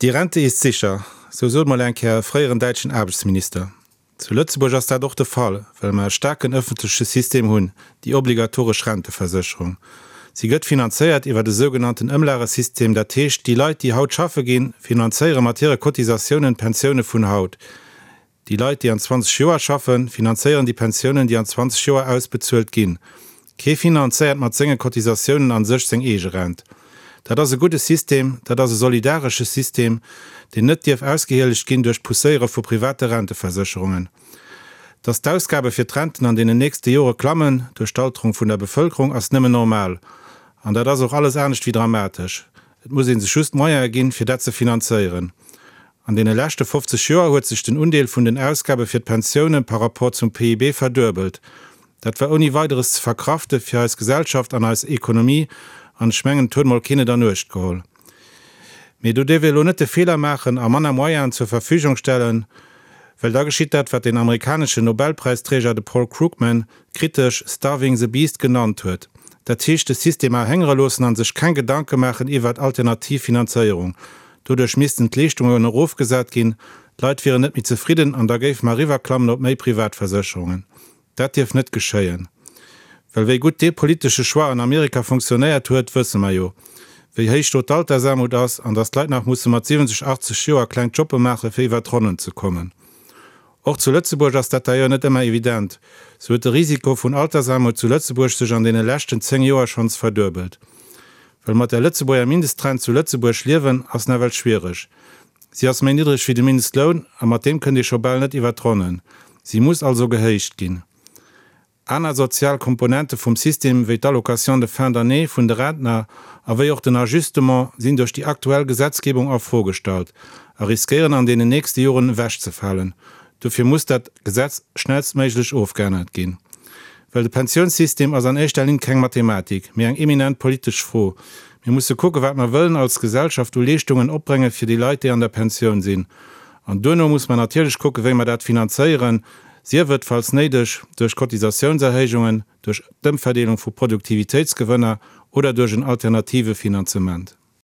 Die Rente ist sicher, sou sot mol eng Kéier e fréieren däitschen Aarbechtsminister. Zu Lëtzebuerg ass dat och de Fall, well mer e staarken ëffentleche System hunn, déi obligatoresch Renteversécherung. Si gëtt finanzéiert iwwert e sougenannten Ëmlagesystem, dat heescht, déi Leit, déi haut schaffe ginn, finanzéiere mat hire Cotisatiounen d'Pensioune vun haut. Déi Leit, déi an 20 Joer schaffen, finanzéieren déi Pensiounen, déi an 20 Joer ausbezuelt ginn. Kee finanzéiert mat senge Cotisatiounen a sech seng eege Rent. Dat ass e gudde System, dat ass e solidaresche System, deen net dierf ausgehielegt ginn duerch d'Pousséiere vu private Renteversécherungen. Dass d'Ausgabe fir d'Renten an deenen nächste Jore klammen duerch d'Alterung vun der Bevëlkerung, ass nëmmen normal. An dat ass och alles anescht wéi dramatesch. Et muss ee sech just d'Moyene ginn, fir dat ze finanzéieren. An deene leschte 50 Joer huet sech den Undeel vun den Ausgabe fir d'Pensioune par rapport zum PIB verduebelt. Dat war ouni Weideres ze verkrafte fir eis Gesellschaft an eis Ekonomie, an ech mengen, et huet mol keen et an Uecht geholl. Mee do dierf ee elo net de Feeler maachen a manner Moyenen zur Verfügung stellen, well da geschitt dat, wat deen amerikaneschen Nobelpräisträger, de Paul Krugman, kritesch starving the beast genannt huet, dat heescht de System erhéngere loossen a sech keng Gedanke maachen iwwert alternativ Finanzéierung. Doduerch missten d'Leeschtungen erofgesat ginn, d'Leit wieren net méi zefridden an da géife mer eriwwerklammen op méi Privatversécherungen. Dat dierf net geschéien. Well wéi gutt dee politesche Choix an Amerika funktionéiert huet, wësse mer jo. Wéi héich do d'Altersaarmut ass an datt d'Leit nach musse mat 70, 80 Joer kleng Jobbe maache fir iwwer d'Ronnen ze kommen. Och zu Lëtzebuerg ass dat d'ailleurs net ëmmer evident. Sou huet de Risiko vun Altersaarmut zu Lëtzebuerg sech an deene leschten 10 Joer schonns verduebelt. Well mat der Lëtzebuerger Mindestrent zu Lëtzebuerg liewen ass nawell schwiereg. Si ass méi niddreg wéi de Mindestloun a mat deem kënnt ee scho bal net iwwer d'Ronnen. Si muss also gehéicht ginn. Aner sozial Komponente vum System, wéi d'Allocation de fin d'année vun de Rentner a wéi och den Ajustement, sinn duerch déi aktuell Gesetzgebung a Fro gestallt a riskéieren an deenen nächste Joren ewechzefalen. Dofir muss dat Gesetz schnellstméiglech ofgeännert ginn. Well de Pensiounssystem ass an éischter Linn keng Mathematik, mee eng eminent politesch Fro. Mir musse kucke wat mer wëllen als Gesellschaft u Leeschtungen opbrénge fir déi Leit, déi an der Pensioun sinn. An duerno muss mer natierlech kucke wéi mer dat finanzéieren, sief et, falls néideg, duerch Cotisatiounserhéijungen, duerch d'Ëmverdeelung vu Produktivitéitsgewënner oder duerch en alternative Finanzement.